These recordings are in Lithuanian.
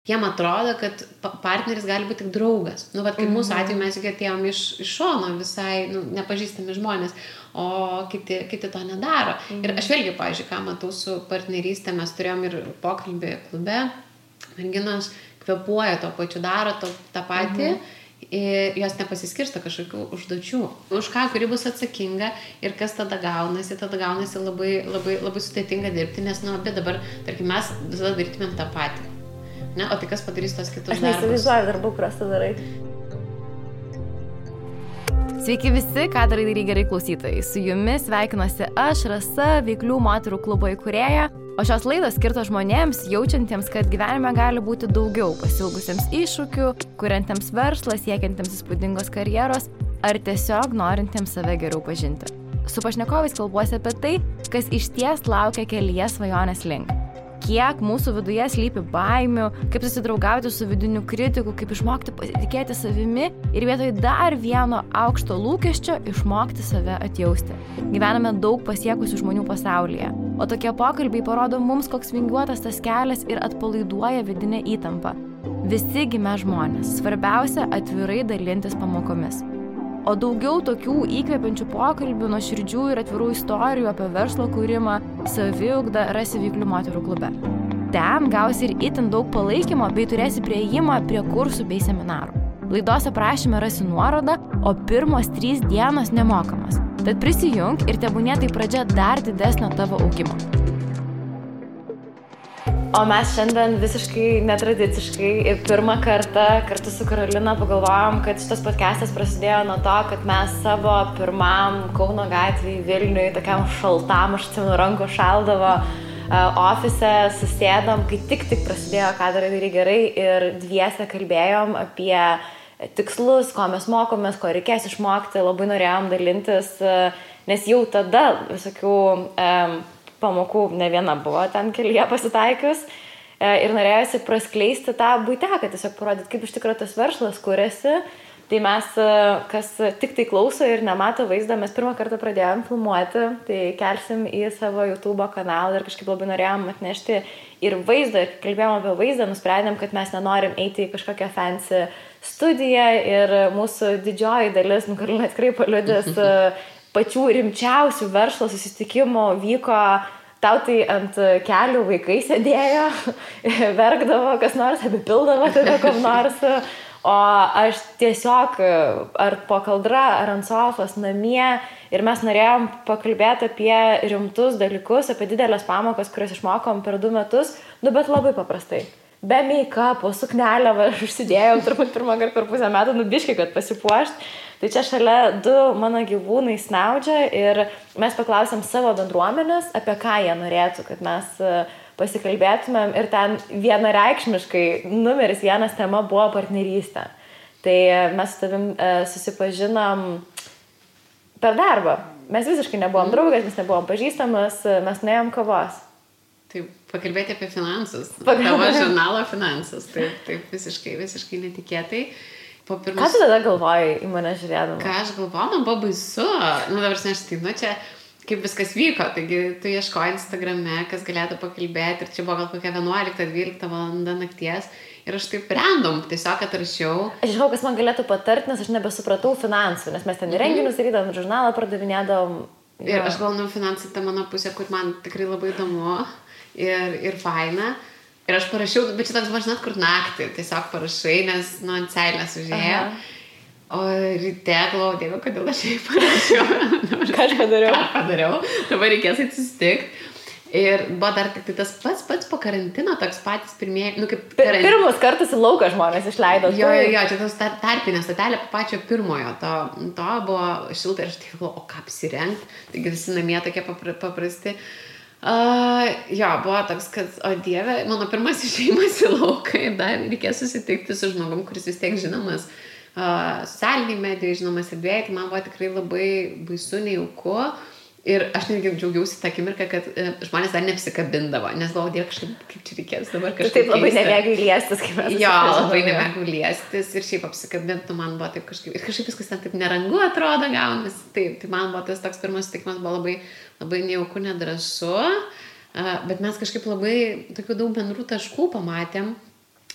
jiem atrodo, kad partneris gali būti tik draugas. Nu, vat, kaip mūsų atveju mes juk atėjom iš šono visai nepažįstami žmonės, o kiti to nedaro. Ir aš vėlgi, pavyzdžiui, ką matau su partnerystė, mes turėjom ir pokalbį klube, merginos kvėpuoja to pačiu, daro tą patį, ir jos nepasiskirsto kažkokių užduočių, už ką, kuri bus atsakinga ir kas tada gaunasi labai, labai, labai sudėtinga dirbti, nes, bet dabar, tarkim, mes visada darytumėm tą patį. Ne? O tai kas padarys tos kitus darbus? Aš neįsivaizduoju darbų, kuriuos tu darai. Sveiki visi, ką darai gerai klausytojai. Su jumis sveikinuosi aš, Rasa, Veiklių moterų klubo įkūrėja. O šios laidos skirtos žmonėms, jaučiantiems, kad gyvenime gali būti daugiau, pasiilgusiems iššūkių, kuriantiems verslą, siekiantiems įspūdingos karjeros ar tiesiog norintiems save geriau pažinti. Su pašnekovais kalbuosi apie tai, kas išties laukia kelyje svajonės link. Kiek mūsų viduje slypi baimių, kaip susidraugauti su vidiniu kritiku, kaip išmokti pasitikėti savimi ir vietoj dar vieno aukšto lūkesčio išmokti save atjausti. Gyvename daug pasiekusių žmonių pasaulyje, o tokie pokalbiai parodo mums, koks vingiuotas tas kelias ir atpalaiduoja vidinę įtampą. Visi gimę žmonės, svarbiausia atvirai dalintis pamokomis. O daugiau tokių įkvepiančių pokalbių, nuoširdžių ir atvirų istorijų apie verslo kūrimą, saviugdą rasi Veiklių moterų klube. Ten gausi ir itin daug palaikymo bei turėsi priėjimą prie kursų bei seminarų. Laidos aprašyme rasi nuorodą, o pirmos 3 dienos nemokamos. Tad prisijunk ir tebūnie tai pradžia dar didesnio tavo augimo. O mes šiandien visiškai netradiciškai ir pirmą kartą kartu su Karolina pagalvojom, kad šitas podcastas prasidėjo nuo to, kad mes savo pirmam Kauno gatvėj Vilniui, tokiam šaltam, aš atsimenu, rankų šaldavo ofise, susėdom, kai tik prasidėjo ką darai gerai ir dviese kalbėjom apie tikslus, ko mes mokomės, ko reikės išmokti, labai norėjom dalintis, nes jau tada visokių pamokų ne viena buvo ten kelyje pasitaikius ir norėjosi praskleisti tą buiteką, tiesiog parodyti, kaip iš tikrųjų tas verslas kuriasi. Tai mes, kas tik tai klauso ir nemato vaizdą, mes pirmą kartą pradėjom filmuoti, tai kelsim į savo YouTube kanalą ir kažkaip labai norėjom atnešti ir vaizdą, ir kalbėjom apie vaizdą, nusprendėm, kad mes nenorim eiti į kažkokią fancy studiją ir mūsų didžioji dalis, Karolina tikrai paliudės, pačių rimčiausių verslo susitikimų vyko, tau tai ant kelių vaikai sėdėjo, verkdavo, kas nors apipildavo tada kom nors, o aš tiesiog ar po kaldra, ar ant sofos namie ir mes norėjom pakalbėti apie rimtus dalykus, apie didelės pamokas, kurias išmokom per 2 metus, bet labai paprastai. Be make-upo, suknelę, aš užsidėjau turbūt pirmą kartą per pusę metų, biškai, kad pasipuošt. Tai čia šalia 2 mano gyvūnai snaudžia ir mes paklausėm savo bendruomenės, apie ką jie norėtų, kad mes pasikalbėtumėm ir ten vienareikšmiškai numeris 1 tema buvo partnerystė. Tai mes su tavim susipažinom per darbą. Mes visiškai nebuvom draugas, mes nebuvom pažįstamas, mes nuėjom kavos. Taip, pakalbėti apie finansus. Tavo žurnalo finansus. Taip visiškai netikėtai. Ką tu tada galvojai į mane žiūrėdama? Ką aš galvojau, man buvo baisu. Dabar aš čia kaip viskas vyko. Taigi tu ieškoji Instagrame, kas galėtų pakalbėti. Ir čia buvo gal kokia 11-12 valanda nakties. Ir aš taip random tiesiog atrašiau. Aš žinau, kas man galėtų patarti, nes aš nebesupratau finansų. Nes mes ten renginius darydavom, žurnalą pardavinėdavom. Ir aš galvoju, finansai ta mano pusė, kur man tikrai labai įdomu. Ir faina. Ir aš parašiau, bet čia toks buvo, žinot, kur naktį tiesiog parašai, nes ant seilės užėjo. O ryte galvoju, Dieve, kodėl aš jai parašiau. Ką aš padariau? Dabar reikės atsistikt. Ir buvo dar tik tas pats po karantino, toks patys pirmieji, Pirmus kartus į lauką žmonės išleido. Jo, čia tas tarpinė statelė pačio pirmojo, to buvo šilta ir aš tik galvoju, o ką apsirengti. Taigi visi namie tokie paprasti. Buvo toks, kad, o Dieve, mano pirmas išėjimas į lauką ir dar reikės susitikti su žmogum, kuris vis tiek žinomas socialiniai medijai, žinomas erdvėje, tai man buvo tikrai labai baisu, nejauku. Ir aš netgi džiaugiausi tą akimirką, kad žmonės dar neapsikabindavo, nes galvoju, Dieve, kažkaip kaip čia reikės dabar kažkaip taip labai nemėgai liestis, kaip mes. Jo, labai nemėgai liestis ir šiaip apsikabinti, man buvo taip kažkaip, ir kažkaip viskas ten taip nerangu atrodo gaunasi, taip, tai man buvo tas toks pirmas sutikimas, buvo labai, labai nejauku, nedrąsu, bet mes kažkaip labai tokių daug bendrų taškų pamatėm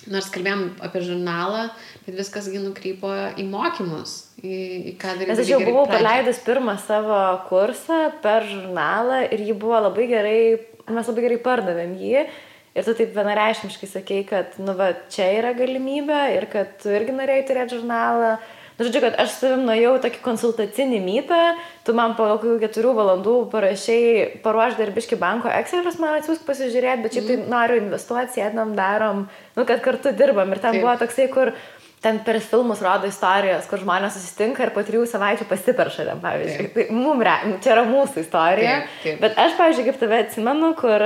nors kalbėjom apie žurnalą, bet viskas nukrypo į mokymus, į ką daryti. Nes aš jau buvau paleidus pirmą savo kursą per žurnalą ir jį buvo labai gerai, mes labai gerai pardavėm jį. Ir tu taip vienareikšmiškai sakei, kad čia yra galimybė ir kad tu irgi norėjai turėti žurnalą. Žodžiu, kad aš savim nuėjau tokį konsultacinį mytą, tu man po 4 valandų paruoš darbiški banko Excelius, man atsiųsk pasižiūrėti, bet šiaip tai noriu investuoti, sėdam, darom, kad kartu dirbam. Ir ten buvo toksai, kur ten per filmus rodo istorijos, kur žmonės susitinka ir po 3 savaičių pasiperša ten, pavyzdžiui. Tai čia yra mūsų istorija. Taip. Bet aš, pavyzdžiui, kaip tave atsimenu, kur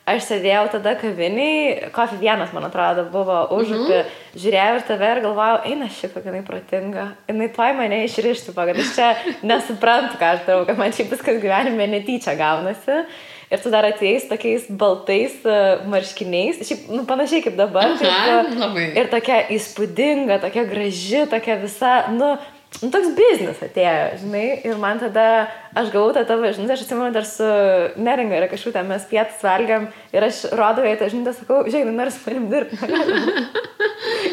aš sėdėjau tada kaviniai, Coffee 1, man atrodo, buvo užupį, žiūrėjau ir tave ir galvojau, eina šiaip, kad jinai protinga. Jinai tuoj mane išrištų, kad aš čia nesuprantu, ką aš darau, kad man šiaip viskas gyvenime netyčia gaunasi. Ir tu dar atėjai tokiais baltais marškiniais, šiaip panašiai kaip dabar. Ir tokia įspūdinga, tokia graži, tokia visa, toks biznis atėjo, žinai, ir man tada, aš gavau tą tavo žinutę, aš atsimenu dar su Neringa ir kažkaip mes pietus valgiam ir aš rodau jai tą žinutę, sakau, žiūrėk, nori su manim dirbti,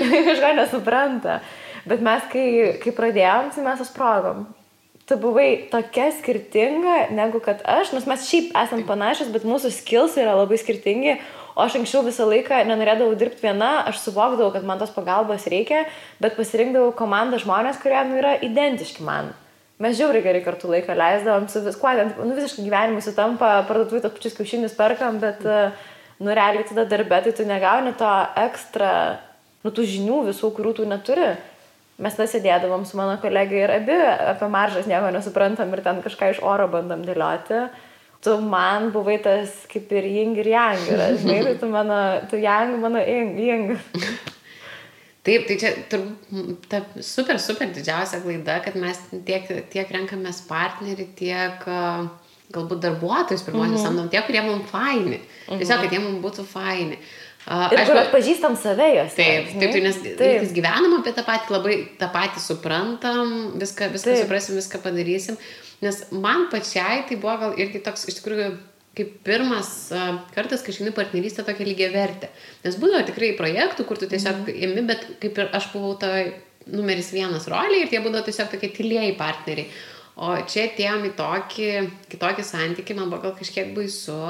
jinai kažko nesupranta, bet mes, kai pradėjom, tai mes susprogom. Tu buvai tokia skirtinga, negu kad aš, nes mes šiaip esam panašios, bet mūsų skills yra labai skirtingi. O aš anksčiau visą laiką nenorėdavau dirbti viena, aš suvokdavau, kad man tos pagalbos reikia, bet pasirinkdavau komandą žmonės, kurie yra identiški man. Mes žiauriai gerai kartu laiką leisdavom, su viskuo, visiškai gyvenimui sutampa, parduotuvai tos pačius kiaušinius perkam, bet realiai tada darbe, tai tu negauni to ekstra, tų žinių visų, kurių tu neturi. Mes tada sėdėdavom su mano kolegai ir abi apie maržas nieko nesuprantam ir ten kažką iš oro bandom dėlioti. Tu man buvai tas kaip ir yin ir yang, žinai, tai tu yang, mano yin. Taip, tai čia ta super didžiausia klaida, kad mes tiek renkamės partnerį, tiek galbūt darbuotojus pirmosius samdom, tie, kurie mums faini. Tiesiog, kad jie mums būtų faini. Ir kur atpažįstam save jos. Taip, nes gyvenam apie tą patį, labai tą patį suprantam, viską suprasim, viską padarysim. Nes man pačiai tai buvo gal irgi toks, iš tikrųjų, kaip pirmas kartas, kai išeini partnerystę tokia lygiavertė. Nes būdavo tikrai projektų, kur tu tiesiog imi, bet kaip ir aš buvau toj numeris 1 roliai ir tie būdavo tiesiog tokie tylieji partneriai. O čia atėjom į kitokį santykį, man buvo gal kažkiek baisu.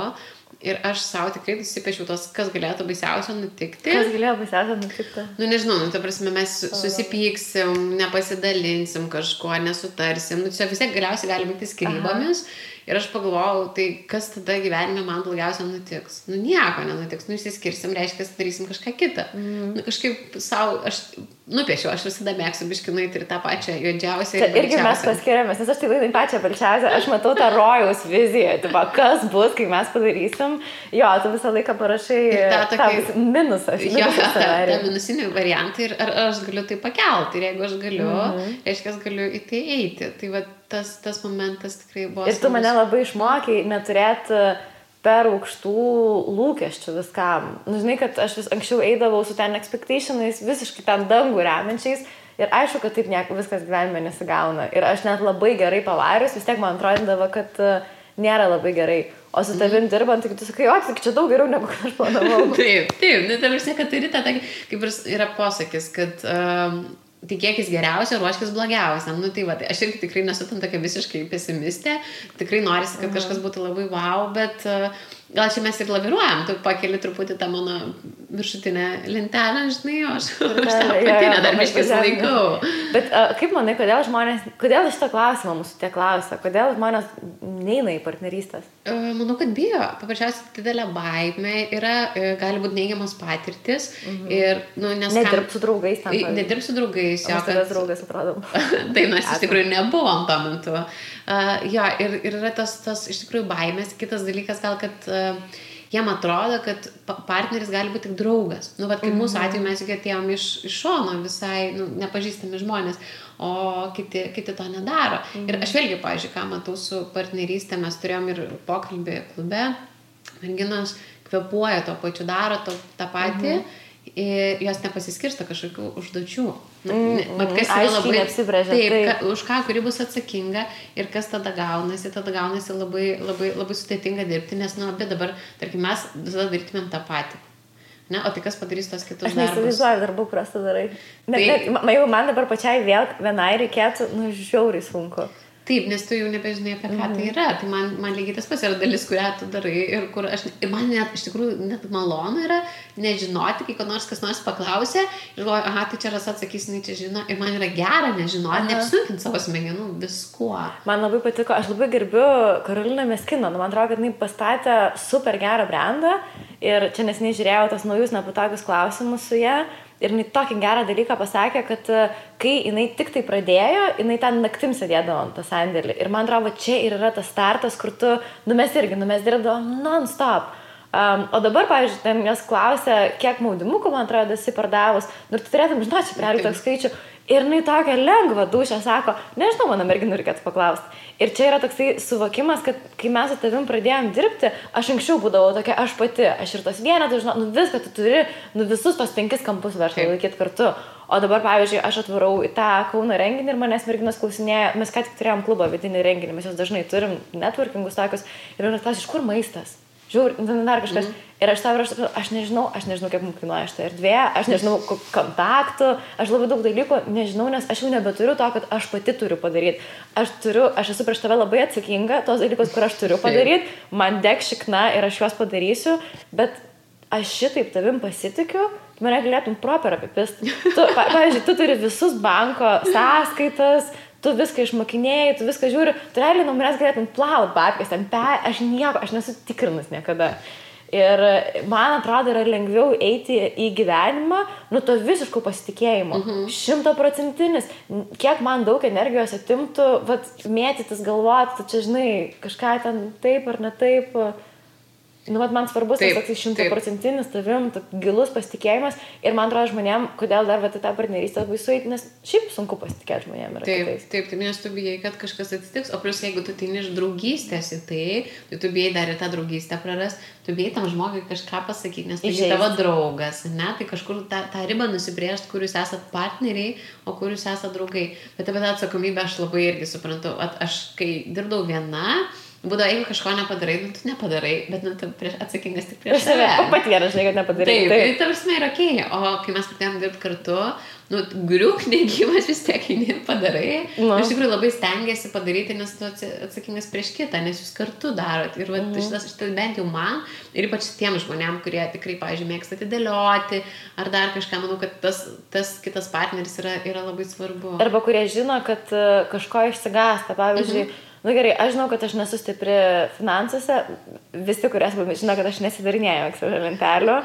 Ir aš savo tikrai susipiešiau tos, kas galėtų baisiausio nutikti. Kas galėjo baisiausio nutikti? Nežinau, ta prasme, mes susipyksim, nepasidalinsim kažko, nesutarsim. Čia vis tiek galiausiai gali būti skyrybomis. Ir aš pagalvojau, tai kas tada gyvenime man blogiausia nutiks? Nieko nenutiks, išsiskirsim, reiškia, darysim kažką kitą. Kažkaip savo, aš nupiešiau, aš visada mėgstu biškinuoti ir tą pačią juodžiausią. Čia irgi mes paskiriamės, nes aš tai laidai pačią balčiausią, aš matau tą rojaus viziją, kas bus, kai mes padarysim. Jo, tu visą laiką parašai tą minusą. Jo, tą minusinį variantą ir ar aš galiu tai pakelti. Ir jeigu aš galiu, reiškia, aš galiu į tai eiti. Tai va, tas momentas tikrai buvo. Ir tu mane labai išmokai neturėti per aukštų lūkesčių viskam. Žinai, kad aš vis anksčiau eidavau su ten expectationais, visiškai ten dangų remiančiais ir aišku, kad taip viskas gyvenime nesigauna. Ir aš net labai gerai pavarius, vis tiek man atrodydavo, kad nėra labai gerai. O su tavim dirbant, tai tu sakai, tik čia daug geriau negu aš planavau. Taip, tai vis kad turi tą, kaip ir yra posakis, kad tikėkis geriausia, ruoškis blogiausia. Tai va, aš irgi tikrai nesu tam tokia visiškai pesimistė, tikrai norisi, kad kažkas būtų labai wow, bet gal čia mes ir laviruojam, tu pakeli truputį tą mano viršutinę lentelę, žinai, o aš tą patinę dar biškis laikau. Bet kaip manai, kodėl šitą klausimą mūsų tie klausia, kodėl žmonės neina į partnerystės? Manau, kad bijo. Paprasčiausiai didelė baimė yra, gali būti neigiamas patirtis. Ir, nedirb su draugais tam. Nedirb su draugais. O mes draugais atrodom. Tai mes iš tikrųjų nebuvom tuo metu. Ir yra tas iš tikrųjų baimės. Kitas dalykas gal, kad jiem atrodo, kad partneris gali būti tik draugas. Kaip mūsų atveju mes juk atėjom iš šono visai nepažįstami žmonės, o kiti to nedaro. Ir aš vėlgi, pavyzdžiui, ką matau su partnerystė, mes turėjom ir pokalbį klube, merginos kvėpuoja to pačiu, daro tą patį ir jos nepasiskirsta kažkokių užduočių. Kas yra labai apsibrėžia. Taip, už ką, kuri bus atsakinga ir kas tada gaunasi labai, labai, labai sudėtinga dirbti, nes abi dabar, tarkim, mes visada darytumėm tą patį. Ne, o tai kas padarys tos kitus Aš darbus? neįsivaizduoju darbų, kuriuos tu darai. Jeigu man dabar pačiai vėl vienai reikėtų, žiauriai sunku. Taip, nes tu jau nebežinai, apie ką tai yra. Tai man lygiai tas pats yra dalis, kurią tu darai ir man net, iš tikrųjų, net malonu yra nežinoti, kai kas nors paklausė ir galvoju, aha, tai čia Rasa atsakys, jinai čia žino. Ir man yra gera nežinoti, neapsunkinti savo smegenų viskuo. Man labai patiko, aš labai gerbiu Karoliną Meskiną. Man atrodo, kad jinai pastatė super gerą brandą ir čia nesiniai žiūrėjau tos naujus nepatogius klausimus su ją. Ir jinai tokį gerą dalyką pasakė, kad kai jinai tik tai pradėjo, jinai ten naktim sėdėdavo ant tą sandėlį. Ir man atrodo, čia ir yra tas startas, kur tu, mes dirbdavom non-stop. O dabar, pavyzdžiui, ten jos klausė, kiek maudimukų, man atrodo, esi pardavus. Ir tu turėtum žinoti, čia realiai toks skaičių. Ir jinai tokia lengva dūšia sako, nežinau, mano merginų reikėtų paklausti. Ir čia yra toksai suvokimas, kad kai mes su tavim pradėjom dirbti, aš anksčiau būdavau tokia, aš pati, aš ir tos vienetus, žinau, viską tu turi, visus tos 5 kampus verslo laikyti kartu. O dabar, pavyzdžiui, aš atvarau į tą Kauno renginį ir manęs merginos klausinėja, mes ką tik turėjom klubą vidinį renginį, mes jos dažnai turim networkingus tokius ir manęs klausia, iš kur maistas? Žiūrėjau, dar kažkas. Ir aš nežinau, kaip mums kainuoja šitą erdvę, aš nežinau kontaktų, aš labai daug dalykų nežinau, nes aš jau nebeturiu to, kad aš pati turiu padaryti. Aš esu prieš tave labai atsakinga, tos dalykus, kur aš turiu padaryti, man deg šikna ir aš juos padarysiu, bet aš šitaip tavim pasitikiu, mane galėtum proper apipist. Pavyzdžiui, tu turi visus banko sąskaitas, tu viską išmokinėjai, tu viską žiūri, tu realiai nuo manęs galėtum plaut babkės, aš nesu tikrinus niekada. Ir man atrodo, yra lengviau eiti į gyvenimą, to visiško pasitikėjimo. 100%. Kiek man daug energijos atimtų, mėtytis galvoti, tu čia žinai, kažką ten taip ar ne taip. Man svarbus tas 100% tavim, gilus pasitikėjimas ir man atrodo žmonėm, kodėl dar tą partnerystę labai sueiti, nes šiaip sunku pasitikėti žmonėm yra kitais. Taip, nes tu bijai, kad kažkas atsitiks, o plus jeigu tu ateini iš draugystės į tai tu bijai dar ir tą draugystę praras, tu bijai tam žmogui kažką pasakyti, nes tai tavo draugas, ne, tai kažkur tą ribą nusibrėžti, kur jūs esat partneriai, o kur jūs esat draugai. Bet apie tą atsakomybę aš labai irgi suprantu, aš kai dirbdavau viena, būdavo, jeigu kažko nepadarai, tu nepadarai, bet tu atsakingas tik prieš save. Pat vienas, žinai, kad nepadarai. Taip, tai tavasme yra okei. O kai mes pradėjom dirbti kartu, griuk negyvas vis tiek eini padarai. Iš tikrųjų labai stengiasi padaryti, nes tu atsakingas prieš kitą, nes jūs kartu darot. Ir šitas bent jau man, ir ypač tiem žmonėm, kurie tikrai, pavyzdžiui, mėgsta atidėlioti, ar dar kažką, manau, kad tas kitas partneris yra labai svarbu. Arba kurie žino, kad kažko išsigąsta, pavyzdžiui, gerai, aš žinau, kad aš nesu stipri finansuose, visi, kurie žino, kad aš nesidarinėjau Excel lentelių.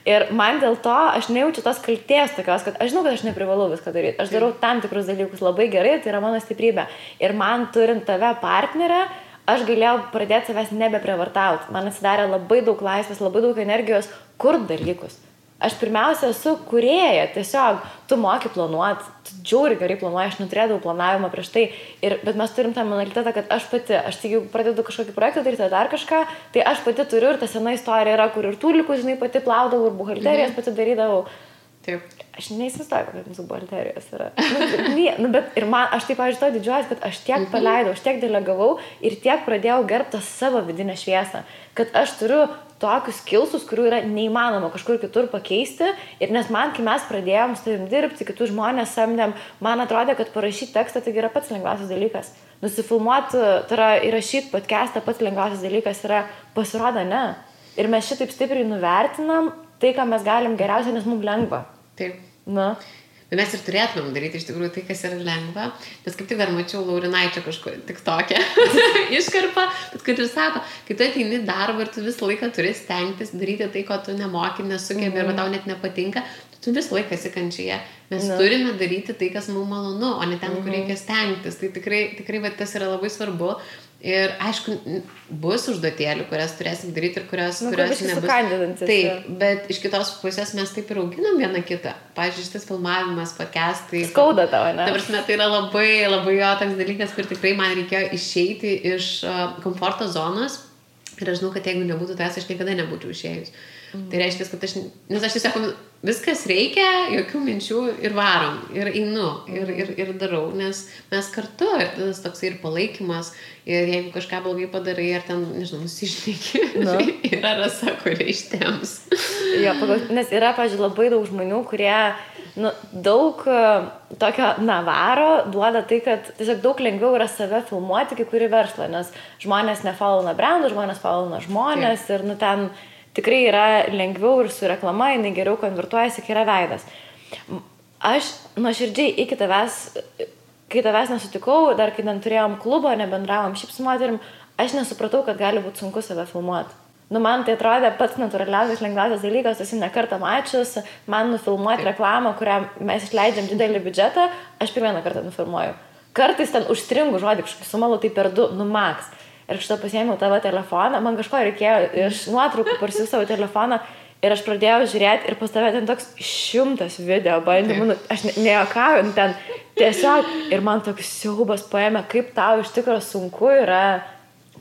Ir man dėl to aš nejaučiu tos kaltės tokios, kad aš žinau, kad aš neprivalau viską daryti. Aš darau tam tikrus dalykus labai gerai, tai yra mano stiprybė. Ir man turint tave partnerę, aš galėjau pradėti savęs nebeprievartauti. Man atsidarė labai daug laisvės, labai daug energijos kurt dalykus. Aš pirmiausia esu kūrėja, tiesiog tu moki planuoti, tu džiauri gerai planuoji, aš neturėdavau planavimą prieš tai, bet mes turim tą mentalitetą, kad aš pati, jeigu pradedu kažkokį projektą daryti dar kažką, tai aš pati turiu ir ta sena istorija yra, kur ir tūlikus, žinai, pati plaudavau ir buhalterijas pati darydavau. Taip. Aš neįsivaizduoju, kokios mūsų buhalterijos yra. Bet ir man, aš taip, pavyzdžiui, to didžiuojas, kad aš tiek paleidau, aš tiek delegavau ir tiek pradėjau gerbti savo vidinę šviesą, kad aš turiu tokius skillsus, kurių yra neįmanoma kažkur kitur pakeisti. Ir nes man, kai mes pradėjom su tavim dirbti, kitus žmonės samdėm, man atrodė, kad parašyti tekstą tai yra pats lengviausias dalykas. Nusifilmuoti, tai yra įrašyti podcastą pats lengviausias dalykas yra, pasirodo, ne. Ir mes šitaip stipriai nuvertinam tai, ką mes galim geriausia, nes mums lengva. Taip. Na. Bet mes ir turėtumėm daryti iš tikrųjų tai, kas yra lengva. Nes kaip tik dar mačiau Laurinaičio kažko tik tokią iškarpą, bet kad ir sako, kai tu ateini darbą ir tu visą laiką turi stengtis daryti tai, ko tu nemoki, nesugebi arba tau net nepatinka, tu visą laiką esi kančioje. Mes turime daryti tai, kas mums malonu, o ne ten, kur reikia stengtis. Tai tikrai tas yra labai svarbu. Ir aišku, bus užduotėlių, kurias turėsim daryti ir kurios nebus. Taip, bet iš kitos pusės mes taip ir auginam vieną kitą. Pavyzdžiui, šitas filmavimas, podcastai. Skauda tavo, ne? Tai yra labai, labai jo toks dalykas, kur tikrai man reikėjo išeiti iš komforto zonos. Ir aš žinau, kad jeigu nebūtų tas, aš niekada nebūčiau išėjus. Tai reiškia, kad nes aš tiesiog viskas reikia, jokių minčių ir varom, ir einu, ir darau, nes mes kartu, ir tas toks ir palaikymas, ir jeigu kažką blogai padarai, ar ten, nežinau, nusišneki, yra Rasa, kurie ištems. Jo, nes yra, pavyzdžiui, labai daug žmonių, kurie daug tokio navaro duoda tai, kad tiesiog daug lengviau yra save filmuoti kai kurį verslą, nes žmonės nefollow brandų, žmonės follow žmonės ir ten tikrai yra lengviau ir su reklama, jinai geriau konvertuojasi, kai yra veidas. Aš nuoširdžiai iki kai tavęs nesutikau, dar kai turėjom klubą, nebendravom šiaip su moterim, aš nesupratau, kad gali būti sunku save filmuoti. Man tai atrodė pats natūraliausias, lengviausias dalykas, esu ne kartą mačius, man nufilmuoti reklamą, kurią mes išleidžiam didelį biudžetą, aš pirmieną kartą nufilmuoju. Kartais ten užstringu žodį, kažkokį sumalau tai per 2, max. Ir šitą pasiėmiau tavo telefoną, man kažko reikėjo iš nuotraukų parsiųsti savo telefoną ir aš pradėjau žiūrėti ir pas tave ten toks 100 video bandymų, aš nejuokauju, ten tiesiog ir man toks siaubas paėmė, kaip tau iš tikrųjų sunku yra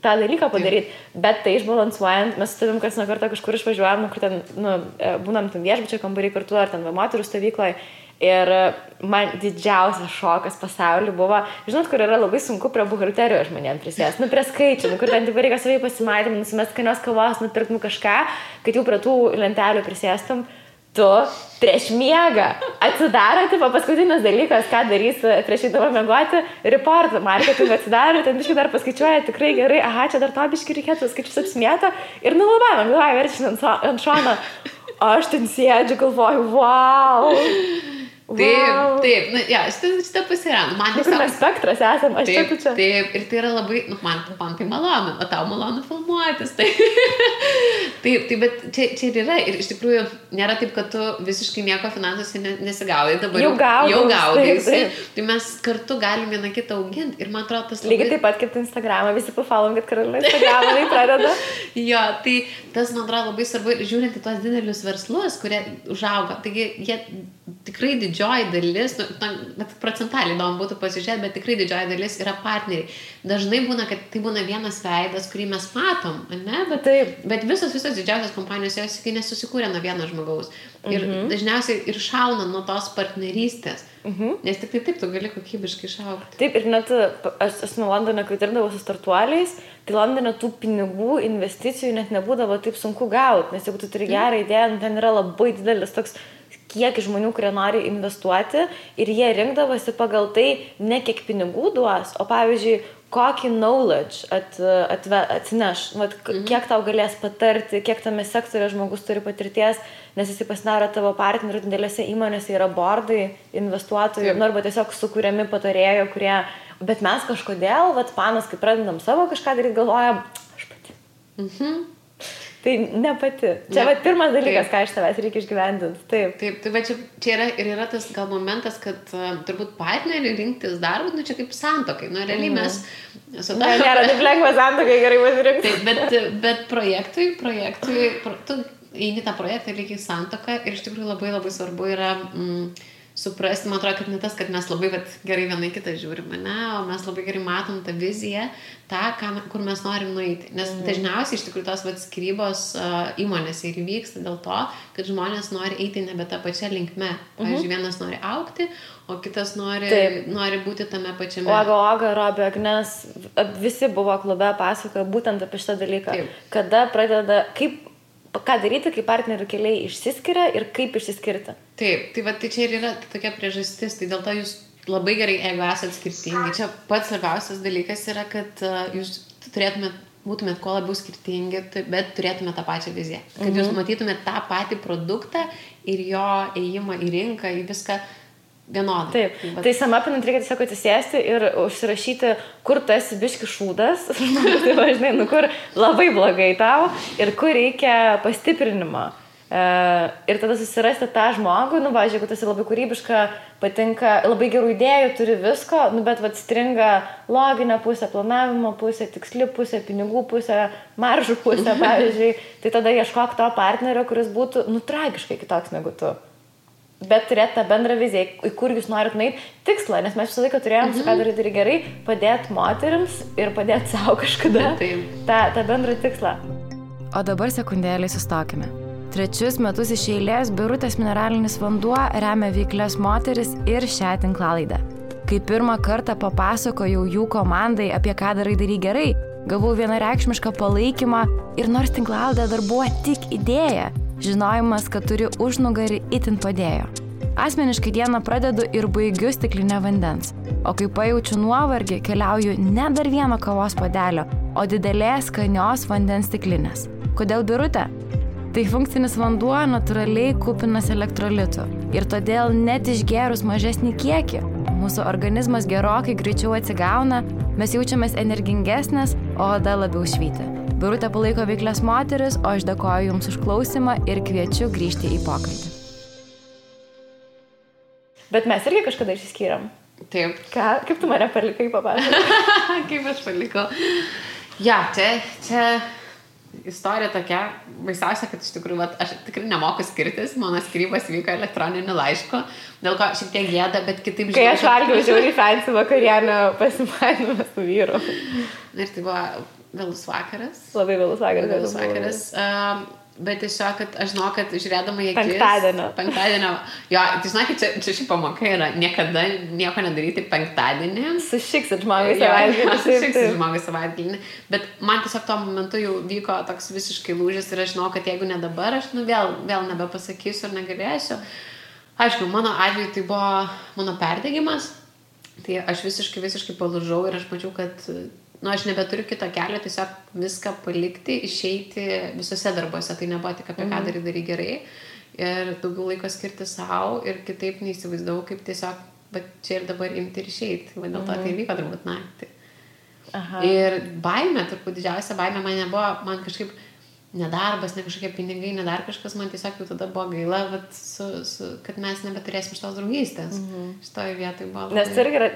tą dalyką padaryti, bet tai išbalansuojant, mes su tavim kas nuo kartą kažkur išvažiuojam, kur ten, būnam ten viešbučio kambarį kartu, ar ten moterų stovykloje, ir man didžiausias šokas pasaulyje buvo, žinot, kur yra labai sunku prie buhalterijos žmonėm prisėsti, prie skaičių, kur ten taip reikia savai pasimatymų, nusimest skanios kavos, nupirktum kažką, kad jau prie tų lentelių prisėstum, tu prieš miegą atsidaro, paskutinis dalykas, ką darys prieš įdavą miegoti, reportą, marketingą atsidaro, ten biškai dar paskaičiuoja tikrai gerai, čia dar to biškai reikėtų, skaičius apsimėto ir labai, man galvoja, verčia ant šono, aš ten sėdžiu, galvoju, wow. Taip, šitą pasirand. Kur mes spektras esam, aš čia. Taip, ir tai yra labai, man tai malonu, o tau malonu filmuotis. Taip, bet čia ir yra, ir iš tikrųjų nėra taip, kad tu visiškai nieko finansuose nesigaudai, dabar jau gaudaisi. Tai mes kartu galim vieną kitą auginti ir man atrodo tas labai... Lygiai taip pat kaip Instagramą, visi pafolom, kad Karolina Instagramą tai pradeda. Jo, tai tas man atrodo labai svarbu, žiūrint į tos didelius verslus, kurie užauga, taigi jie tikrai didžioji dalis, bet procentaliai įdomu būtų pasižiūrėti, bet tikrai didžioji dalis yra partneriai. Dažnai būna, kad tai būna vienas veidas, kurį mes matom, ne? Bet visos didžiausios kompanijos jos nesusikūrė nuo vieno žmogaus. Ir dažniausiai ir šauna nuo tos partnerystės. Nes tik taip tu gali kokybiškai šaukti. Taip, ir net aš nuo Londone, kai dirbdavau su startuoliais, tai Londone tų pinigų, investicijų net nebūdavo taip sunku gauti, nes jeigu tu turi gerą idėją, ten yra labai didelis toks kiek žmonių, kurie nori investuoti ir jie rinkdavosi pagal tai ne kiek pinigų duos, o pavyzdžiui, kokį knowledge atsineš, kiek tau galės patarti, kiek tame sektorė žmogus turi patirties, nes jis pasidaro tavo partnerių, didelėse įmonėse yra bordai, investuotojų, arba tiesiog sukūriami patarėjo, kurie, bet mes kažkodėl, panas, kai pradedam savo kažką daryti, galvojam, aš pati. Tai ne pati. Čia pirmas dalykas, ką iš tavęs reikia išgyvendinti. Taip, tai čia yra tas gal momentas, kad turbūt partnerį rinktis darbą, čia kaip santuokai. Realiai mes... Nėra taip lengva santuokai gerai pasirinkti. Taip, bet projektui, tu eini tą projektą lygiai santuoką ir iš tikrųjų labai labai svarbu yra suprasti, man atrodo, kad ne tas, kad mes labai gerai vienai kitą žiūrime, o mes labai gerai matom tą viziją, kur mes norim nueiti. Nes dažniausiai iš tikrųjų tos skyrybos įmonėse ir vyksta dėl to, kad žmonės nori eiti nebe tą pačią linkme. Pavyzdžiui, vienas nori augti, o kitas nori būti tame pačiame. Oga, Robė, Agnes, visi buvo klube pasakoja būtent apie šitą dalyką. Taip. Kada pradeda, ką daryti, kai partnerių keliai išsiskiria ir kaip išsiskirti. Taip, tai čia ir yra tokia priežastis, tai dėl to jūs labai gerai, jeigu esate skirtingi. Čia pats svarbiausias dalykas yra, kad jūs būtumėt kuo labiau skirtingi, bet turėtumėt tą pačią viziją. Kad jūs matytumėt tą patį produktą ir jo ėjimą į rinką, į viską vienodai. Taip, tai samapinant reikia tiesiog atsisėsti ir užsirašyti, kur tu esi biški šūdas, tai važinai, kur labai blogai tau ir kur reikia pastiprinimo. Ir tada susirasti tą žmogų, jeigu tu esi labai kūrybiška, patinka, labai gerų idėjų, turi visko, bet stringa loginė pusė, planavimo pusė, tiksli pusė, pinigų pusė, maržų pusė, pavyzdžiui, tai tada ieškok to partnerio, kuris būtų, tragiškai kitoks negu tu. Bet turėti tą bendrą viziją, į kur jūs norit nueiti, tikslą, nes mes visą laiką turėjom, ką daryti gerai, padėti moterims ir padėti savo kažkada tą bendrą tikslą. O dabar sekundėlį sustokime. 3 metus iš eilės Birutės mineralinis vanduo remia veiklias moteris ir šią tinklalaidę. Kai pirmą kartą papasakojau jų komandai apie ką darai gerai, gavau vienareikšmišką palaikymą ir nors tinklalaidė dar buvo tik idėja, žinojimas, kad turi užnugarį itin padėjo. Asmeniškai dieną pradedu ir baigiu stiklinę vandens, o kai pajaučiu nuovargį, keliauju ne dar vieno kavos puodelio, o didelės skanios vandens stiklinės. Kodėl Birutė? Tai funkcinis vanduo natūraliai kupinas elektrolitų ir todėl net išgėrus mažesnį kiekį, mūsų organizmas gerokai greičiau atsigauna, mes jaučiamės energingesnės, o oda labiau švyti. Birutė palaiko veiklias moteris, o aš dėkoju Jums už klausimą ir kviečiu grįžti į pokalbį. Bet mes irgi kažkada išsiskyrėm. Taip. Kaip tu mane palikai, papasakok? Kaip aš palikau. Ja, čia istorija tokia, baisiausia, kad iš tikrųjų, aš tikrai nemoku skirtis, mano skyrybos vyko elektroniniu laišku, dėl ko šiek tiek gėda, bet kitaip Kai aš valgiau žiauriai fancy vakarienę pasimanymą su vyru. Ir tai buvo vėlus vakaras. Labai vėlus vakaras. Vėlus vakaras. Bet tiesiog, kad aš žinau, kad žiūrėdama į akis... Penktadienio. Jo, tai žinau, kad čia ši pamoka yra niekada nieko nedaryti penktadienį. Sušiksit žmogai savaitgalį. Sušiksit žmogai savaitgalį. Bet man tiesiog tuo momentu jau vyko toks visiškai lūžis ir aš žinau, kad jeigu ne dabar, aš vėl nebepasakysiu ir negalėsiu. Aišku, mano atveju tai buvo mano perdegimas. Tai aš visiškai palūžau ir aš mačiau, kad... aš nebeturiu kito kelio, tiesiog viską palikti, išeiti visose darbuose. Tai nebuvo tik apie ką darai gerai. Ir daugiau laiko skirti savo ir kitaip neįsivaizdavau, kaip tiesiog čia ir dabar imti ir išeiti. Dėl to tai vyko turbūt naktį. Aha. Ir baimė, turbūt didžiausia baimė man nebuvo, man kažkaip nedarbas, ne kažkokie pinigai, ne dar kažkas, man tiesiog jau tada buvo gaila, kad mes nebeturėsim šitos draugystės. Šitoje vietoje buvo labai... Nes irgi yra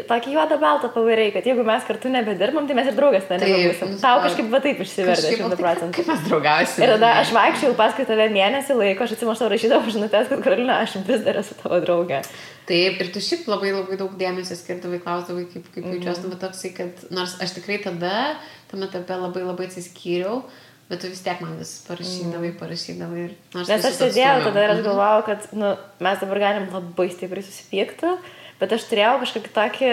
tokį juodą baltą pavariai, kad jeigu mes kartu nebedirbam, tai mes ir draugas nebebūsim. Tau kažkaip va taip išsivertė 100%. Kaip mes draugausim? Ir tada aš vaikščiau paskui tave mėnesį laiko, aš atsimuoš tau rašydavau žinutės, kad Karolina, aš vis dar esu tavo draugė. Taip, ir tu šiaip labai daug dėmesio skirdavai, klausdavai, kaip jaučiuosi, bet toksai, kad nors aš tikrai tada, tame etape labai atsiskyriau, bet tu vis tiek man vis parašydavai. Nes aš sėdėjau tada ir aš galvojau, kad mes dabar galim labai stipriai susipykti, bet aš turėjau kažkokį tokį,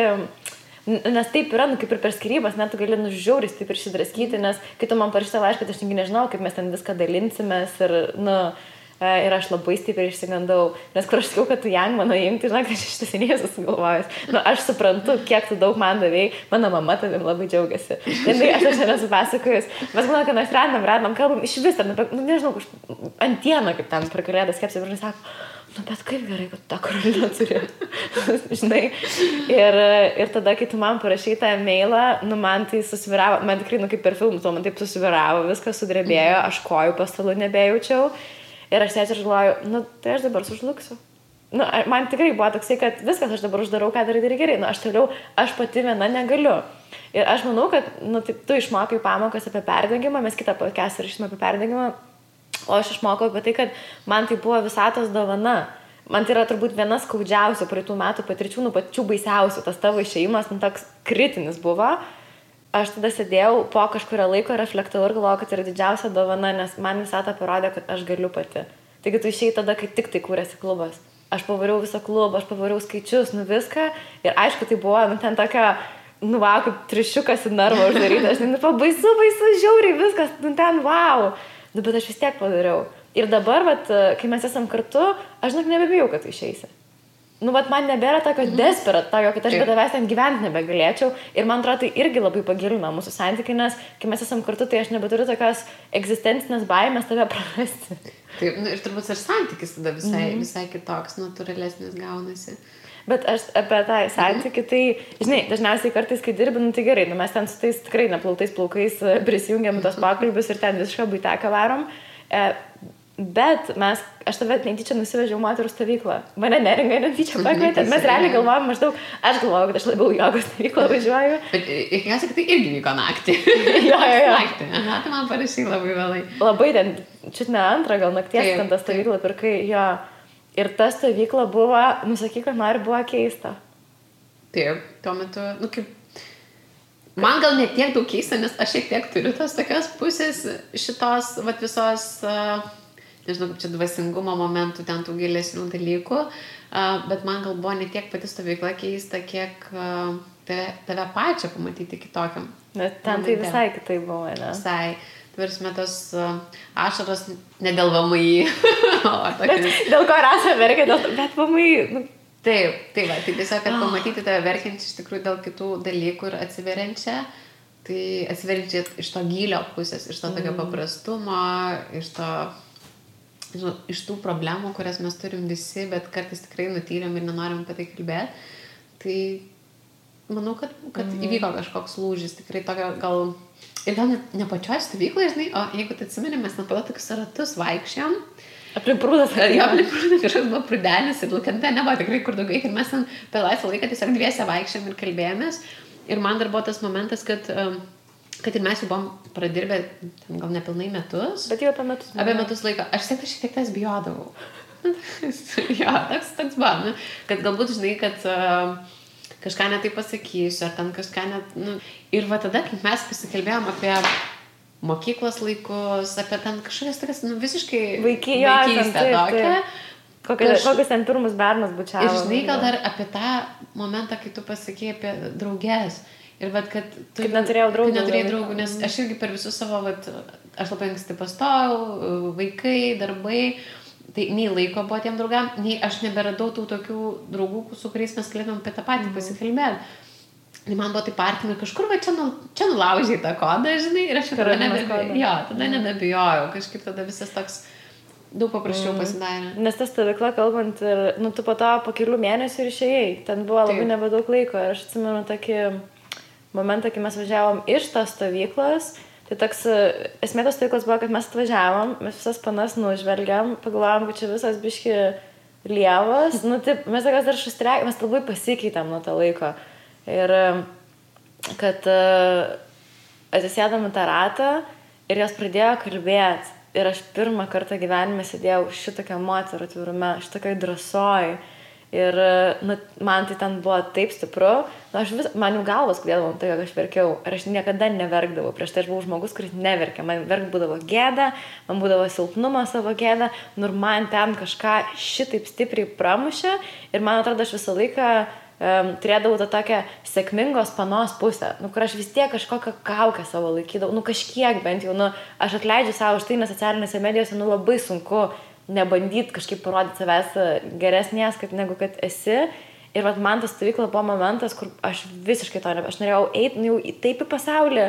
nes taip yra, kaip ir per skyrybas, net tu gali žiauriai taip ir išsidraskyti, nes kai tu man parašyta laišką, aš nežinau, kaip mes ten viską dalinsimės ir aš labai stipriai išsigandau, nes kur aš sakiau, kad tu jang mano imti, žinok, aš iš tiesiai sugalvojęs. Aš suprantu, kiek tu daug man davėjai, mano mama tavim labai džiaugiasi. Ir aš nesu pasakojus, mes manau, kad mes randam, kalbam iš vis, nežinau, antieną, kaip ten per kalėdas kepsi, ir žinai sako, bet kaip gerai, kad tą Karoliną turi. Žinai. Ir tada, kai tu man parašai tą mailą, man tai susviravo, man tikrai, kaip per filmus, man taip susviravo, viskas sudrebėjo, aš kojų po stalu nebejaučiau. Ir aš sėdžiu ir galvoju, tai aš dabar sužlugsiu. Man tikrai buvo toksai, kad viskas aš dabar uždarau, ką darai gerai. Aš pati viena negaliu. Ir aš manau, kad tu išmokai pamokas apie perdegimą, mes kitą podcastą rašysime apie perdegimą, o aš išmokau apie tai, kad man tai buvo visatos dovana. Man tai yra turbūt viena skaudžiausių praeitų metų patirčių, pačių baisiausių. Tas tavo išėjimas, toks kritinis buvo. Aš tada sėdėjau po kažkurio laiko reflektavau ir galvojau, kad tai yra didžiausia dovana, nes man visata parodė, kad aš galiu pati. Taigi tu išėjai tada, kai tik tai kūrėsi klubas. Aš pavariau visą klubą, aš pavariau skaičius, viską. Ir aišku, tai buvo, ten tokia, kaip trišiukas į narvą uždaryta. Aš baisu, žiauriai viskas, ten, wow. Bet aš vis tiek padariau. Ir dabar, kai mes esam kartu, aš nebebijau, kad tu išeisi. Man nebėra tokio desperat, kad aš be tavęs ten gyventi nebegalėčiau. Ir man atrodo, tai irgi labai pagilina mūsų santykį, nes kai mes esam kartu, tai aš nebeturiu tokios egzistencinės baimės tave prarasti. Taip, ir turbūt ir santykis tada visai kitoks, natūralesnis gaunasi. Bet aš apie tą santykį, tai, žinai, dažniausiai kartais, kai dirbi, tai gerai, mes ten su tais tikrai neplautais plaukais prisijungiam tos pokalbius ir ten visišką buiteką varom. Bet aš tave netyčia nusivežiau moterų stovyklą. Mane Neringa netyčia pakvietė. Mes realiai galvojom maždaug, aš galvojau, kad aš labiau jogos stovyklą važiuoju. Bet įkiausia, kad tai irgi vyko naktį. Jo. Naktį. Aha, tai man parašai labai vėlai. Labai ten, čiut ne antrą, gal nakties ten tą stovyklą pirkai, jo. Ir ta stovykla buvo, sakyk, kad nori, buvo keista. Taip, tuo metu, kaip... Man gal ne tiek daug keista, nes aš šiek tiek turiu tos tokios pusės šitos, visos... nežinau, kaip čia dvasingumo momentų, ten tų gilesnių dalykų, bet man gal buvo ne tiek pati stovykla keista, kiek tave pačią pamatyti kitokiam. Bet ten tai visai kitai buvo, ne? Visai. Tvarsime tos ašaros ne dėl VMI. Dėl ko Rasa verkia, bet VMI... Taip, va, tai tiesiog, kad pamatyti tave verkiančią iš tikrųjų dėl kitų dalykų ir atsiveriančią, tai atsiveriančią iš to gylio pusės, iš to tokio paprastumo, iš to, žinau, iš tų problemų, kurias mes turim visi, bet kartais tikrai nutyliam ir nenorim apie tai kalbėti. Tai manau, kad įvyko kažkoks lūžis, tikrai tokio gal... Ir gal ne pačioj stovykloje, žinai, o jeigu tai atsimeni, mes nepado tokius ratus vaikščiam. Aplink prūdas. Aplink prūdas kažkas buvo prūdelis ir Lukente nebuvo tikrai kur daugiau. Ir mes ten per laisvą laiką tiesiog dviese vaikščiam ir kalbėjomės. Ir man dar buvo tas momentas, kad ir mes jau buvom pradirbę gal nepilnai metus. Bet jau apie metus. Apie metus laiko. Aš šiek tiek tas bijodavau. Jo, toks buvo. Nu, kad galbūt, žinai, kad kažką netai pasakysiu, ar ten kažką net... Nu. Ir va tada, kaip mes pasikalbėjom apie mokyklos laikus, apie ten kažkokias tokias, nu, visiškai vaikystę tokią. Kokius ten pirmus bernus bučiavo. Ir žinai, gal dar apie tą momentą, kai tu pasakėjai apie draugės. Ir vat, kad tu... Kaip neturėjau draugų, nes aš irgi per visus savo, vat, aš labai anksti pastojau, vaikai, darbai, tai nei laiko buvo tiem draugam, nei aš neberadau tų tokių draugų, su kuriais mes galėtum apie tą patį pasikalbėti. Tai man buvo taip artima ir kažkur va čia nulaužiai tą kodą, žinai, ir aš tada nebebijojau, kažkaip tada visas toks daug paprasčiau pasidarė. Nes ta stovykla, kalbant, ir, nu, tu po kelių mėnesių ir išėjai, ten buvo labai nebedaug laiko ir aš atsimenu tokį momentą, kai mes važiavom iš tos stovyklos, tai toks, esmė tos stovyklos buvo, kad mes atvažiavom, mes visas panas nužvelgiam, pagalvojom, kad čia visas biški lievas, nu, taip, mes tokios dar šustriai, mes labai pasikeitėm nuo to laiko. Ir kad atsisėdam į tą ratą ir jos pradėjo kalbėti. Ir aš pirmą kartą gyvenime sėdėjau šitokią moterų atvirume, šitokioj drąsoj. Ir nu, man tai ten buvo taip stipru. Nu, man jau galvas skaudėdavo tai, kad aš verkiau. Ir aš niekada neverkdavau. Prieš tai aš buvau žmogus, kuris neverkia. Man verk būdavo gėda, man būdavo silpnumo savo gėda. Nu, ir man ten kažką šitaip stipriai pramušė. Ir man atrodo, aš visą laiką turėdavau tą tokią sėkmingos panos pusę, nu, kur aš vis tiek kažkokią kaukę savo laikydavau, nu, kažkiek bent jau, nu, aš atleidžiu savo už tai, nes socialinėse medijose, nu, labai sunku nebandyti kažkaip parodyti savęs geresnės, negu kad esi. Ir vat man tas stovykla buvo momentas, kur aš visiškai to aš norėjau eiti, nu, jau taip į pasaulį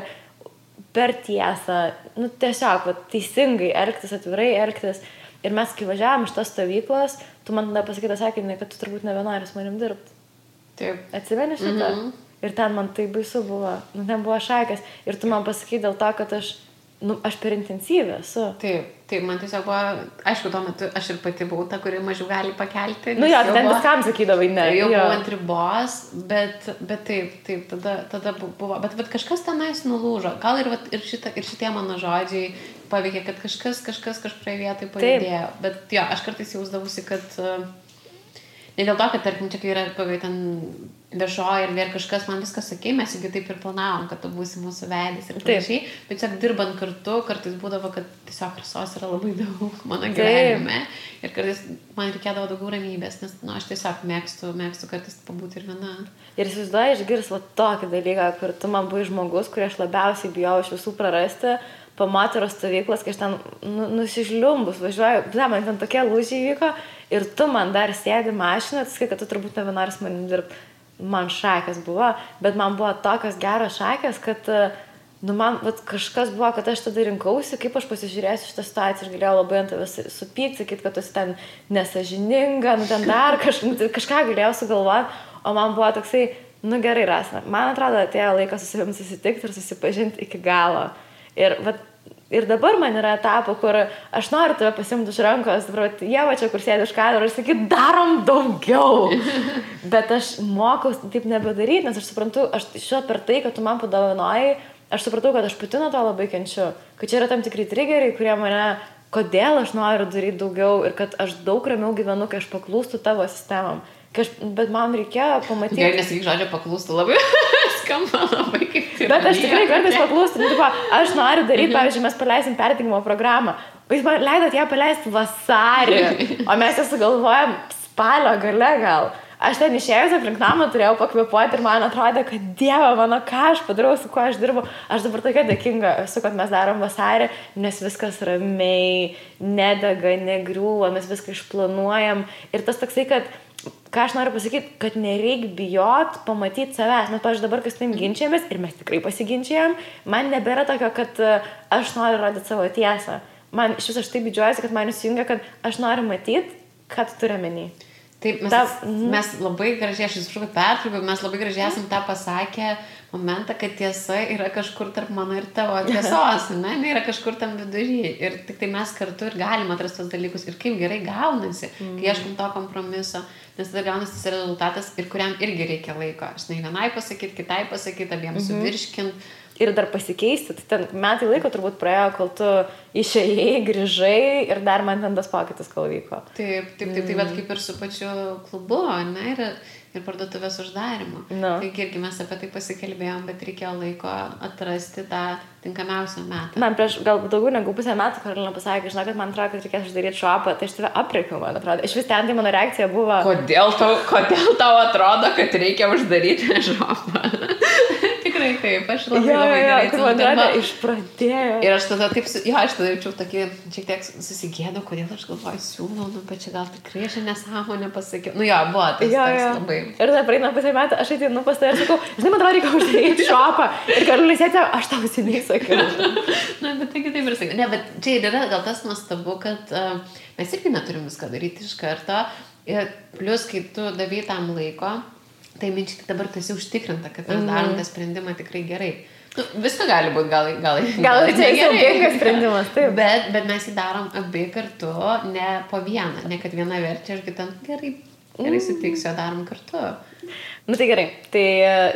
per tiesą, nu, tiesiog, vat, teisingai elgtis, atvirai elgtis. Ir mes, kai važiavom iš tos stovyklos, tu man tada pasakyti sakinį, kad tu turbūt nebenori su manim dirbti. Taip. Atsimeni šitą? Ir ten man tai baisu buvo. Nu, ten buvo šakės. Ir tu man pasakai dėl to, kad aš per intensyvę esu. Taip, man tiesiog buvo, aišku, tuo metu aš ir pati buvau ta, kuri mažiau gali pakelti. Nu jo, ten viskam sakydavai, ne. Jau buvau ant ribos, bet taip, tada buvo. Bet kažkas tenais nulūžo. Gal ir šitie mano žodžiai paveikė, kad kažkas kažkurioje vietoje pajudėjo. Bet jo, aš kartais jausdavusi, kad... Ne dėl to, kad, tarkim, čia kai yra ten viešoji ir vėl kažkas man viskas sakė, mes juk taip ir planavom, kad tu būsi mūsų veidis ir panašiai, bet tiesiog dirbant kartu, kartais būdavo, kad tiesiog rasos yra labai daug mano gyvenime ir kartais man reikėdavo daugiau ramybės, nes aš tiesiog mėgstu kartais pabūti ir viena. Ir įsivaizduoju, išgirs tokį dalyką, kur tu man buvai žmogus, kurį aš labiausiai bijau iš visų prarasti, po moterų stovyklas, kai aš ten nusižliumbus važiuoju, man ten tokie lūžiai vyko ir tu man dar sėdi mašiną, tai sakai, kad tu turbūt nebenori su manim dirbti. Man šakės buvo, bet man buvo tokios geros šakės, kad man kažkas buvo, kad aš tada rinkausi, kaip aš pasižiūrėsiu šitą situaciją ir galėjau labai ant tavęs supykti, sakyti, kad tu esi ten nesažininga, ten dar kažką galėjau sugalvoti, o man buvo toksai, gerai, Rasa, man atrodo, atėjo laikas su savim susitikti ir susipažinti iki galo. Ir dabar man yra etapo, kur aš noriu tave pasimti už rankos, Ieva čia, kur sėdi už kadro, ir sakyti, darom daugiau. Bet aš mokau taip nebedaryti, nes aš suprantu, aš šio per tai, kad tu man padovanojai, aš supratau, kad aš pati nuo to labai kenčiu. Kad čia yra tam tikri triggeriai, kurie mane, kodėl aš noriu daryti daugiau ir kad aš daug ramiau gyvenu, kai aš paklūstu tavo sistemam. Bet man reikėjo pamatyti... Gerai, nesakyk žodžio paklūstu labai. Skamba labai kaip tai. Bet aš tikrai kartais paklūstu. Aš noriu daryti, pavyzdžiui, mes paleisim perdegimo programą. O jūs man leidot ją paleisti vasarį, o mes ją sugalvojom spalio gale gal. Aš ten išėjus aplink namą turėjau pakvėpuoti ir man atrodė, kad Dieve mano, ką aš padarau, su kuo aš dirbu. Aš dabar tokia dėkinga esu, kad mes darom vasarį, nes viskas ramiai, nedega, negriūva, mes viską išplanuojam. Ir tas toksai, kad, ką aš noriu pasakyti, kad nereik bijot pamatyti savęs. Mes, pavyzdžiui, dabar kas tam ginčiamės ir mes tikrai pasiginčiam, man nebėra tokio, kad aš noriu rodyti savo tiesą. Man iš viso aš taip didžiuojuosi, kad man įsijungia, kad aš noriu matyti, ką tu turi menį. Taip, mes labai gražiai, aš įsiprašau, kad pertraukiau, mes labai gražiai esam tą pasakę momentą, kad tiesa yra kažkur tarp mano ir tavo tiesos, ne, yra kažkur tam vidury. Ir tik tai mes kartu ir galim atrasti tos dalykus. Ir kaip gerai gaunasi, kai ieškom to kompromiso, nes tada gaunasi tas rezultatas ir kuriam irgi reikia laiko. Aš vienai pasakyti, kitai pasakyti, abiems suvirškinti. Ir dar pasikeisti, tai ten metai laiko turbūt praėjo, kol tu išėjai, grįžai ir dar man ten tas pokytis kol vyko. Taip, bet kaip ir su pačiu klubu, ne, ir parduotuvės uždarimu. Taigi irgi mes apie tai pasikalbėjom, bet reikėjo laiko atrasti tą tinkamiausią metą. Man prieš gal daugiau negu pusę metų Karolina pasakė, žinau, kad man atrodo, kad reikės uždaryti šopą, tai aš tave aprėkiau, man atrodo. Iš vis ten tai mano reakcija buvo... Kodėl tau atrodo, kad reikia uždaryti šopą? Tikrai taip, aš labai gerai atsiprašau. Išpradėjo. Ir aš tada taip, aš tada jaučiau tokį, šiek tiek susigėdau, kodėl aš galvoju, siūlau, bet čia gal tikrai aš nesąmonę pasakiau. Buvo tas labai. Ir tada praeina pusę metų, aš ateinu pas tave ir sakau, žinai, man atrodo, reikia uždaryti šopą. Ir Karolina sėdė, aš tau seniai sakiau. Bet taigi taip ir sakiau. Ne, bet čia ir yra gal tas nuostabu, kad mes irgi neturim viską daryti iš karto. Ir plus, kai tu davai tam laiko, tai minčiai dabar tu esi užtikrinta, kad mes darom tą sprendimą tikrai gerai. Viską gali būti, gal čia saugingas sprendimas, taip. Bet mes jį darom abi kartu, ne po vieną, ne kad viena verčia ir kita gerai sutiksiu, darom kartu. Tai gerai, tai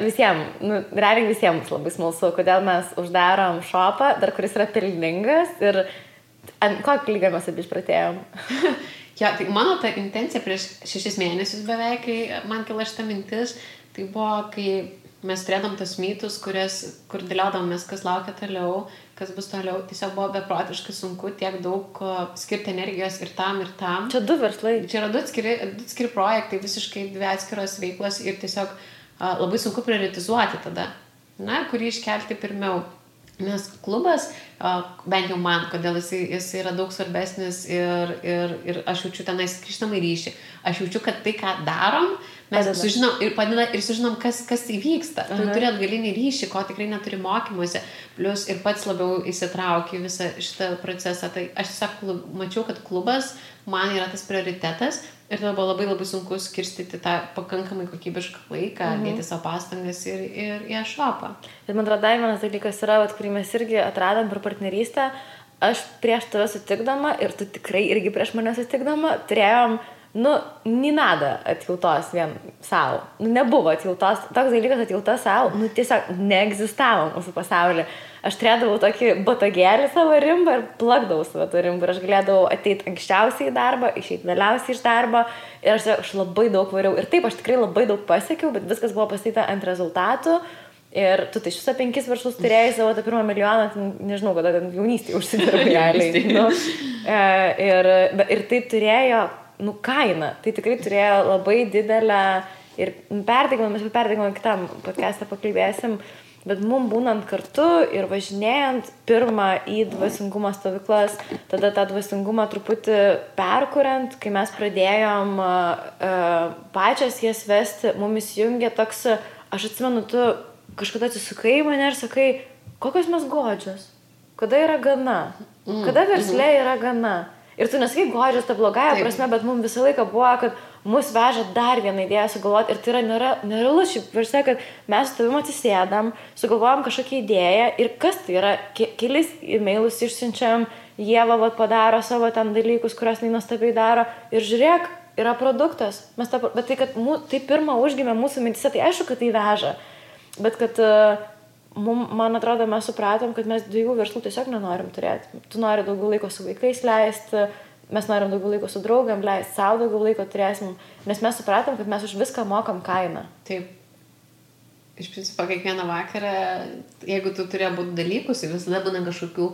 visiems, realiai visiems labai smalsu, kodėl mes uždarom šopą, dar kuris yra pelningas ir ant kokį lygą mes abi išpratėjom. Tai mano ta intencija prieš 6 mėnesius beveik, kai man kilo šita mintis, tai buvo, kai mes turėdam tos mytus, kur dėliodamės, kas laukia toliau, kas bus toliau. Tiesiog buvo beprotiškai sunku tiek daug skirti energijos ir tam. Čia 2 verslai. Čia yra 2 atskiri projektai, visiškai 2 atskiros veiklos ir tiesiog labai sunku prioritizuoti tada, kurį iškelti pirmiau. Nes klubas, bent jau man, kodėl jis yra daug svarbesnis ir aš jaučiu tenais grįžtamą ryšį. Aš jaučiu, kad tai, ką darom, mes sužinom, kas įvyksta. Tu turi atgalinį ryšį, ko tikrai neturi mokymuose, plus ir pats labiau įsitrauki visą šitą procesą. Tai aš tiesiog mačiau, kad klubas man yra tas prioritetas ir tada buvo labai labai sunku skirstyti tą pakankamai kokybišką laiką, dėti savo pastangas ir į šopą. Ir man atrodo, vienas dalykas yra, kurį mes irgi atradom per partnerystę, aš prieš tave sutikdama ir tu tikrai irgi prieš mane sutikdama turėjom ni nada atjautos vien savo. Nebuvo atjautos, toks dalykas atjauta savo, tiesiog neegzistavo mūsų pasaulyje. Aš turėdavau tokį botagėlį savo rimbą ir plakdavau savo tą rimbą. Ir aš galėdavau ateiti anksčiausiai į darbą, išeiti vėliausiai iš darbo. Ir aš labai daug variau. Ir taip, aš tikrai labai daug pasiekiau, bet viskas buvo pastatyta ant rezultatų. Ir tu tai šitą 5 verslus turėjai savo tą 1 milijoną, nežinau, kada ten jaunystėje užsidirbai realiai. Ir tai turėjo kainą. Tai tikrai turėjo labai didelę ir perdegimą kitam podcast'ą pakalbėsim. Bet mums būnant kartu ir važinėjant pirmą į dvasingumo stovyklas, tada tą dvasingumą truputį perkuriant, kai mes pradėjom pačias jas vesti, mumis jungia toks, aš atsimenu, tu kažkada atsisukai į mane ir sakai, kokios mes godžios, kada yra gana, kada versle yra gana. Ir tu nesakai godžios tą blogąją prasme, bet mums visą laiką buvo, kad mus veža dar vieną idėją sugalvoti ir tai yra nerealus šiaip versle, kad mes su tavim atsisėdam, sugalvojam kažkokią idėją ir kas tai yra, kelis e-mailus išsiunčiam, Ieva padaro savo ten dalykus, kurios nuostabiai daro ir žiūrėk, yra produktas. Bet tai, kad tai pirmą užgimė mūsų mintise, tai aišku, kad tai veža. Bet kad man atrodo, mes supratom, kad mes 2 verslų tiesiog nenorim turėti. Tu nori daugiau laiko su vaikais leisti, mes norim daugiau laiko su draugam leisti, savo daugiau laiko turėsim, nes mes supratom, kad mes už viską mokam kainą. Taip. iš principo kiekvieną vakarą, jeigu tu turi būti dalykus, visada būna kažkokių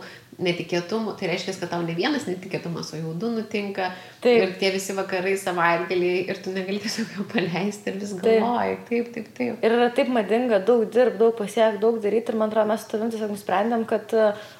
netikėtumų, tai reiškia, kad tau ne vienas netikėtumas, o jau 2 nutinka. Taip. Ir tie visi vakarai, savaitgaliai, ir tu negali tiesiog jau paleisti ir vis galvoji. Taip. Ir yra taip madinga daug dirbti, daug pasiekti, daug daryti. Ir man atrodo, mes su tavim tiesiog nusprendėm, kad,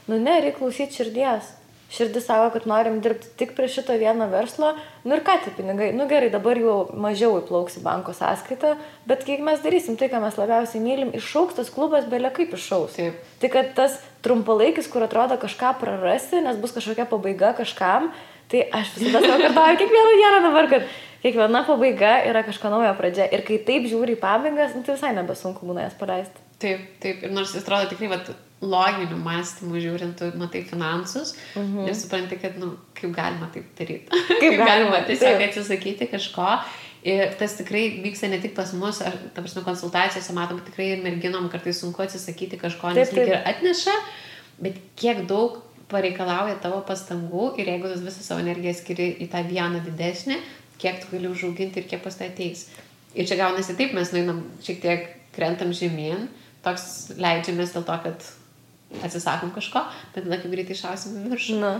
reikia klausyti širdies. Širdis savo, kad norim dirbti tik prie šito vieno verslo. Ir ką tie pinigai? Gerai, dabar jau mažiau įplauks į banko sąskaitą, bet kiek mes darysim tai, ką mes labiausiai mylim, išauks tas klubas belia kaip išauks. Taip. Tai kad tas trumpalaikis, kur atrodo kažką prarasi, nes bus kažkokia pabaiga kažkam, tai aš visada savo kartuoju kiekvieną dieną dabar, kad kiekviena pabaiga yra kažko naujo pradžia. Ir kai taip žiūri į pabaigas, tai visai nebesunku būna jas paleisti. Taip. Ir nors jis atrodo tikrai, loginiu mąstymu žiūrint, tu matai finansus ir supranti, kad, kaip galima taip daryti. Kaip galima tiesiog atsisakyti kažko. Ir tas tikrai vyksta ne tik pas mus, ta prasme, konsultacijose matom, tikrai ir merginom kartais sunku atsisakyti kažko, nes lyg ir atneša, bet kiek daug pareikalauja tavo pastangų ir jeigu tu visą savo energiją skiri į tą vieną didesnį, kiek tu gali užauginti ir kiek pas tai ateis. Ir čia gaunasi taip, mes nueinam šiek tiek krentam žemyn, toks leidžiamės dėl to, kad atsisakom kažko, bet tada kaip greitai išausim į viršų.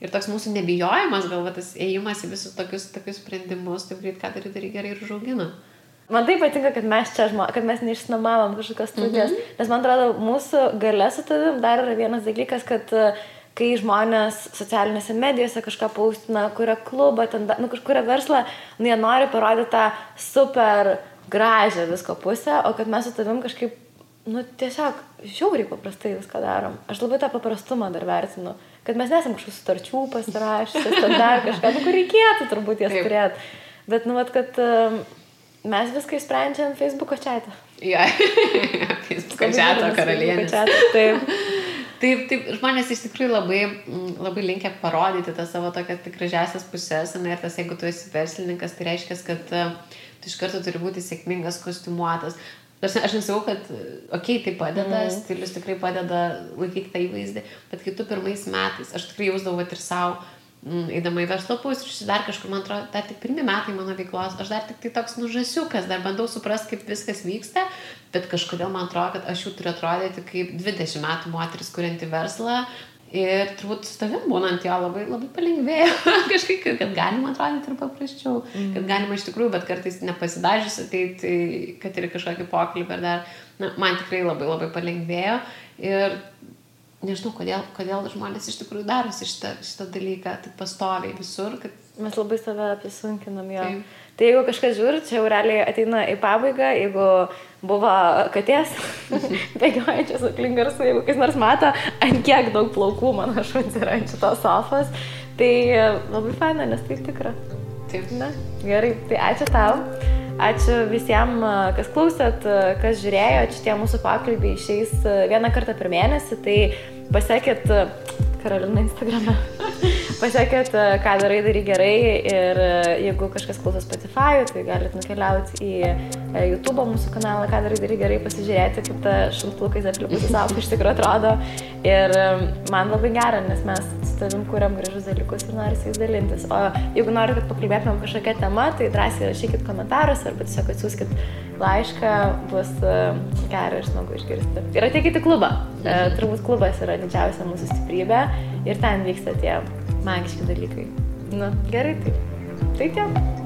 Ir toks mūsų nebijojimas, galva tas ėjimas į visus tokius sprendimus, taip greit ką daryti gerai ir užaugina. Man tai patinka, kad mes čia, kad mes neišsinuomavom kažkokios studijas, nes man atrodo, mūsų galia su tavim dar yra vienas dalykas, kad kai žmonės socialinėse medijose kažką paustina, kuria klubą, kažkuria verslą, jie nori parodyti tą super gražią visko pusę, o kad mes su tavim kažkaip tiesiog žiauriai paprastai viską darom. Aš labai tą paprastumą dar vertinu, kad mes nesam kažkokių sutarčių pasirašęs, ten dar kažką, kur reikėtų turbūt jas turėti. Bet, kad mes viską išsprendžiam Facebook'o chat'e. Facebook'o chat'o karalienė. Taip, žmonės iš tikrųjų labai linkę parodyti tą savo tokias tik gražiasias pusės, ir tas, jeigu tu esi verslininkas, tai reiškia, kad tu iš karto turi būti sėkmingas, kostiumuotas. Aš nesakau, kad tai padeda, stilius tikrai padeda laikyti tą įvaizdį, bet kai tu pirmais metais, aš tikrai jausdavau ir savo, eidama į verslo pusryčius, dar kažkur, man atrodo, dar tik 1 metai mano veiklos, aš dar tik tai toks žąsiukas, dar bandau suprasti, kaip viskas vyksta, bet kažkodėl man atrodo, kad aš jau turiu atrodyti kaip 20 metų moteris, kurianti verslą. Ir turbūt su tavim būnant jo labai palengvėjo kažkaip, kad galima atrodyti ir paprasčiau, kad galima iš tikrųjų, bet kartais nepasidažius ateiti, kad ir kažkokį pokalbį ar dar, man tikrai labai palengvėjo ir nežinau, kodėl žmonės iš tikrųjų darosi šitą dalyką taip pastoviai visur, kad mes labai save apisunkinam jo. Tai jeigu kažkas žiūri, čia jau realiai ateina į pabaigą, jeigu buvo katės bėgiojančios aplink garsų, jeigu kas nors mato, ant kiek daug plaukų mano šuns yra ant šitos sofos, tai labai faina, nes tai tikra. Taip. Gerai, tai ačiū tau. Ačiū visiems, kas klausėt, kas žiūrėjo. Šitie mūsų pokalbiai išeis 1 kartą per mėnesį, tai pasiekit Karolina Instagrame. Pasiekit, ką daryk gerai ir jeigu kažkas klauso Spotify, tai galite nukeliauti į YouTube mūsų kanalą, ką daryk gerai, pasižiūrėti, kaip ta šuntulkais aplipusi savo iš tikrųjų atrodo. Ir man labai gera, nes mes su tavim kuriam gražus dalykus ir nori su jais dalintis. O jeigu nori, kad pakalbėtumėm kažkokią temą, tai drąsiai rašykit komentarus arba tiesiog atsiųskit laišką, bus gera ir smagu išgirsti. Ir ateikit į klubą. Turbūt klubas yra didžiausia mūsų stiprybė ir ten vyksta tie magiški dalykai. Gerai, tai tiek.